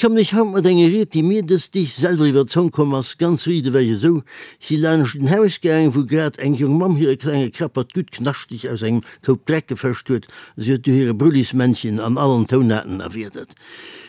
kommen ech haut mat enger Ried, déi mir dës Deeg selwer iwwer d'Zong komm ass, ganz riit ewech esou. Ech si laanscht en Haus gaangen, wou grad eng jong Mamm hire klenge Krappert gutt knaschteg aus engem Koup Dreck gefëscht huet. Si huet du hire Brullismännchen an allen Tounaarten erwiedert.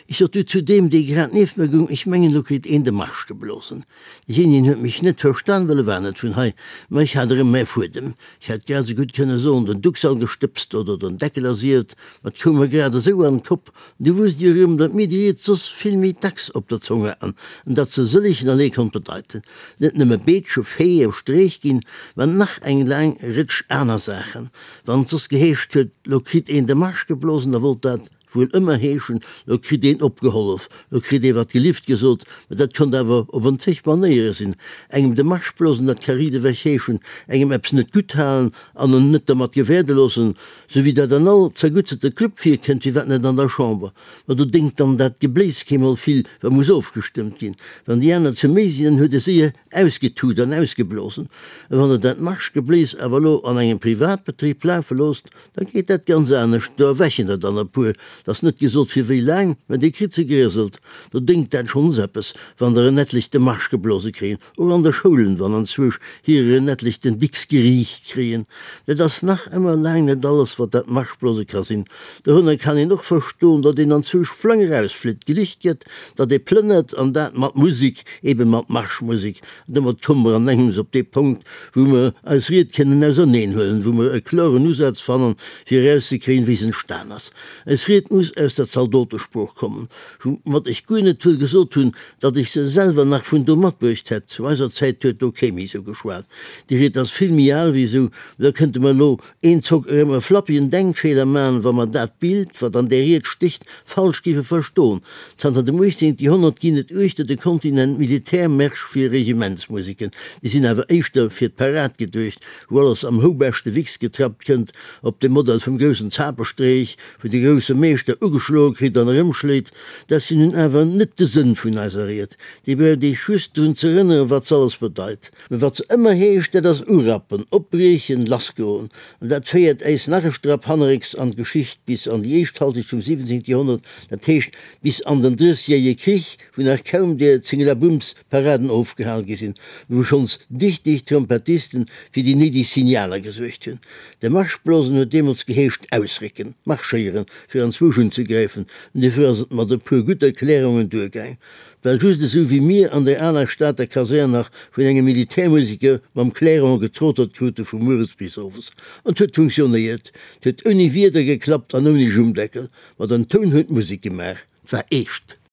Ech sot du zu deem, dee grad nieft mer gung, Ech mengen, lo kritt een de Marsch geblosen. Deejéinegen huet mech net verstan, well e war net vun hei. Ma ech hat erëm mäi Fuedem. Ech hätt grad esou gutt kënne soen, den Duxall gestëbst oder den Deckel ersielt, ma 't koum mer grad esou an d'Kopp. Du wusst jo erëm, datt mir déi Ried soss vill méi dacks op der Zong haten an datt se sëllegen allee konnt bedeiten. Net nëmme Beetsche, Fee, Streech ginn, mä nach eng laang Rëtsch aner Saachen. Wann et soss geheescht huet, lo kritt een de Marsch geblosen, da wollt dat wuel ëmmer heeschen, lo kritt een opgehollef, lo kritt ee wat gelift gesot. Mä dat konnt awer op en zeg Manéiere sinn. Engem de Marsch blosen, dat ka riedewech heeschen, engem eppes net gutt halen an en net dermat gewäerde loossen, Sou wéi dat an all zergutterte Club virkënnt, firwat net an der Chamber? Ma do déngt dann dat Gebléis keemol vill, wa muss ofgestëmmt ginn. Wann déi aner ze méi sinn, dann huet e séier ausgetut an ausgeblosen. A wann Der dat Marschgebléis awer elo an engem Privatbetrib lafe loosst, da geet dat ganz anescht. Do erwächen der dann e puer, 't ass net gesot fir wéi laang, mä Dir kritt se gerieselt. Do déngt dat schonns eppes, wann der en etlech de Marsch geblose kréien. Och an de Schoulen, wann anzwousch hirer en etlech den Dicks geriicht kréien. Dat ass nach ëmmer laang net alles, wat dat Marschblose ka sinn. Dorënner kann een och verstoen, datt een anzwousch flang erausflitt, gelicht gëtt, datt ee plënnert, an dat mat Musik, eben mat Marschmusik. An domat komme mer an engems op dee Punkt, wou mer eis Ried kënnen auserneenhuelen, wou mer e kloren Usaz fannen, fir erauszekréien, wéi se entstan ass. Eis Ried muss aus der Zaldotesprooch kommen, woumat ech guer net wëll gesot hunn, datt ech se selwer nach vun do matbruecht hätt. Zu eiser Zäit huet do kee méi esou geschwat. Déi Ried ass vill méi al wéi esou. Da kënnte mer elo eenzock erëm e flappigen Denkfeeler man, wa mer dat Bild, wat an där Ried stécht, falsch géife verstoen. Zanter dem 18. Joerhonnert ginn et uechter de Kontinent Militärmärsch fir Regimentsmuseken. Déi sinn awer éischter fir d'Parad geduecht, wou alles am houbeschte Wichs getrappt kënnt, op dem Modell vum groussen Zapestreech, wou de grousse Meeschter ugeschloe kritt an erëmschléit. Dat sinn nun awer net de Sënn vun eiser Ried. Déi braucht eech just drun z'erënneren, wat se alles bedeit. Mä wat se ëmmer heescht, dat ass urappen, opbriechen, lassgoen. An dat féiert äis nach e Strapp hannerrécks an d'Geschicht, bis an déi éischt Halschecht vum 17. Joerhonnert, dat heescht bis an den Drëssjährige Krich, wou nach kaum der Zingelabumms Paraden ofgehal gi sinn, wou schonns dichteg Trompettisten fir déi néideg Signaler gesuergt hunn. De Marschblosen huet deemools geheescht ausrécken, marschéieren, fir anzwousch unzegräifen, an duerfir ass et mat e puer gutt Erklärungen duergaang. Et war just esou, wéi mir an der aler Stater Kasär nach vun engem Militärmuseker mam Clairon getrotert krute vu mueres bis owes. An 't huet funktionéiert, 't huet ouni Wieder geklappt an ouni Jummdeckel, ma den Toun huet d'Musek gemaach. 't war eescht.